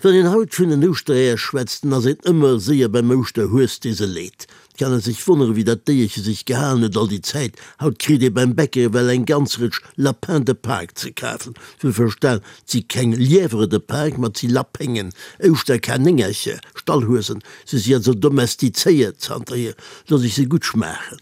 Wann een haut vun den Ouschtereeër schwätzt, dann ass een ëmmer séier beim Ouschterhues, dee se leet. Et kann ee sech wonneren, wéi dat Déierche sech gehalen huet all déi Zäit. Haut kritt ee beim Bäcker ewell eng ganz Rëtsch Lapins de Pâques ze kafen. Wuel verstan, 't si keng Lièvres de Pâques, ma 't si Lapéngen, Ouschterkanéngercher, Stallhuesen. Se si also domestizéiert zanterhier, looss ech se gutt schmaachen.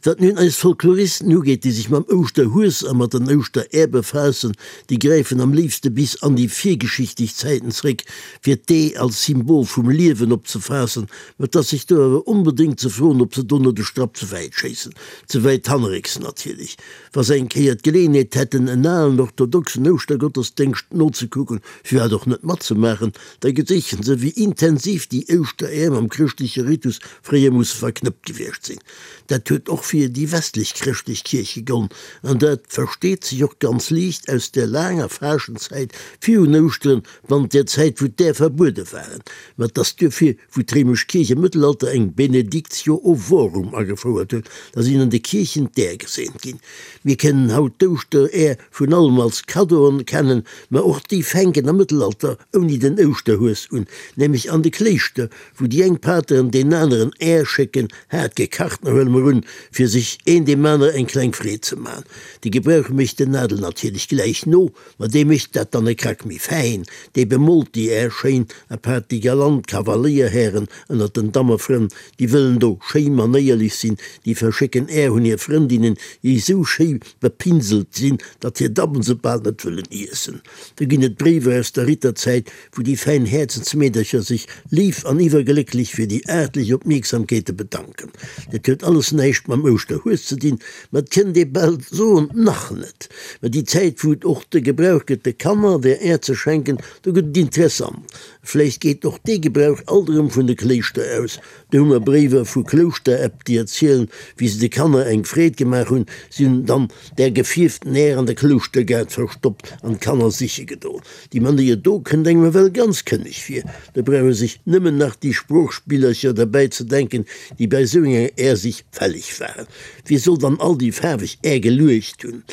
Wat nun eis Folkloristen ugeet, déi sech mam Ouschterhues a mat den Ouschterär befaassen, déi gräifen am léifste bis an déi virgeschichtlech Zäiten zréck, fir d'Ee als Symbol vum Liewen opzefaassen. Mä et ass sech do awer onbedéngt ze froen, ob se do net e Strapp ze wäit schéissen. Ze wäit hannerrécks natierlech. Wa se eng Kéier d'Geleeënheet hätten, en alen orthodoxen Ouschtergottesdéngscht nozekucken, firwat och net matzemaachen, Da geséichen se, wéi intensiv déi Ouschteräer mam chrëschtleche Ritus fréier musse verknëppt gewiescht sinn. Dat huet och fir déi westlech chrëschtlech Kierch gegollen, an dat versteet sech och ganz liicht aus der laanger Faaschtenzäit virun Ouschteren, bannent där Zäit, wou d'Äer verbuede waren. Mä et ass duerfir, wou d'réimesch Kierch am Mëttelalter eng Benedictio ovorum agefouert huet, da sinn an de Kierchen d'Äer geseent ginn. Mir kennen haut d'Ouschteräer vun allem als Kaddoen kennen, mä och déi fänken am Mëttelalter ouni den Ouschterhues un, nämlech an de Kléischter, wou déi eng Pateren deen aneren Är schécken, haart gekacht, na huele mer un, fir sech een deem anere eng kleng Freed ze man. De Gebrauch mécht den Adel natierlech gläich no, ma dee mécht dat dann e Krack méi fäin, dee bemolt déi Är schéin, apaart déi galant Kavaléierhären ënnert den Dammefrënn, déi wëllen do schéi manéierlech sinn, déi verschécken Är un hir Frëndinnen, déi esou schéi bepinselt sinn, datt hir Dammen se bal net wëllen iessen. Do ginn et Bréiwer aus der Ritterzäit, wou déi fäin Häerzensmeedercher sech léif an iwwerglécklech fir déi aartlech Opmierksamkeete bedanken. Dat huet alles näischt mam Ouschterhues ze dinn, ma et kënnt ee bal soen, nach net. Mä déi Zäit, wou et och de Gebrauch gëtt, de Kanner der Är ze schenken, do gëtt et interessant. Vläicht geet och dee Gebrauch alt erëm vun de Kléischter aus. Do hu mer Bréiwer vu Klouschteräpp, déi erzielen, wéi se de Kanner eng Freed gemaach hunn. Si hunn dann där gefierften Är an der Klouschtergaart verstoppt an d'Kanner siche gedoen. Déi Manéier do kënnt engem ewell ganz kënneg vir. Do brauch ee sech nëmmen nach déi Sproochspillercher derbäi ze denken, déi bei esou enger Är-Sich fälleg waren. Wie soll dann all déi faarweg Är geluecht hunn?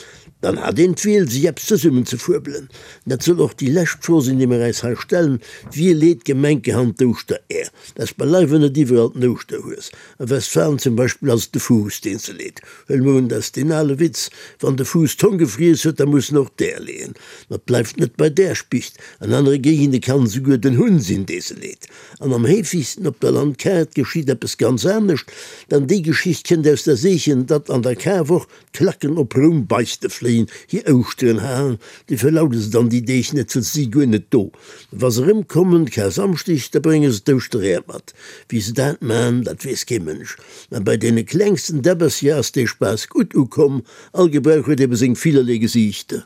Dann hat een d'Wiel, sech eppes zesummenzefuebelen. Dat soll och déi lescht Fro sinn, déi mer äis hei stellen, Wie leet gemenkerhand d'Ouschteräer? Dat ass beileiwe net iwwerall den Ouschterhues. A Westfalen zum Beispill ass et de Fuuss, deen se leet. Huele mer un, dat ass deen ale Witz, Wann de Fuuss d'Hong gefriess huet, da muss en och d'Äer leeën. Ma et bleift net bei där Spicht. An anere Géigende kann et esouguer den Hunn sinn, dee se leet. An am heefegsten op der Landkaart geschitt eppes ganz anescht, dann déi Geschicht kënnt aus der Seechen, datt an der Karwoch D'Klacken op Roum Beichte fléien, hir Ouschteren halen, déi verlaude se dann déi Deeg net, well se si guer net do. Wa se erëmkommen, Karsamschdeg, da brénge se d'Ouschteräer mat. Wéi se dat man, dat weess kee Mënsch. Mä bei deene klengsten Däbbercher ass dee Spaass gutt ukomm. All Gebrauch huet ebe seng villerlee Gesiichter.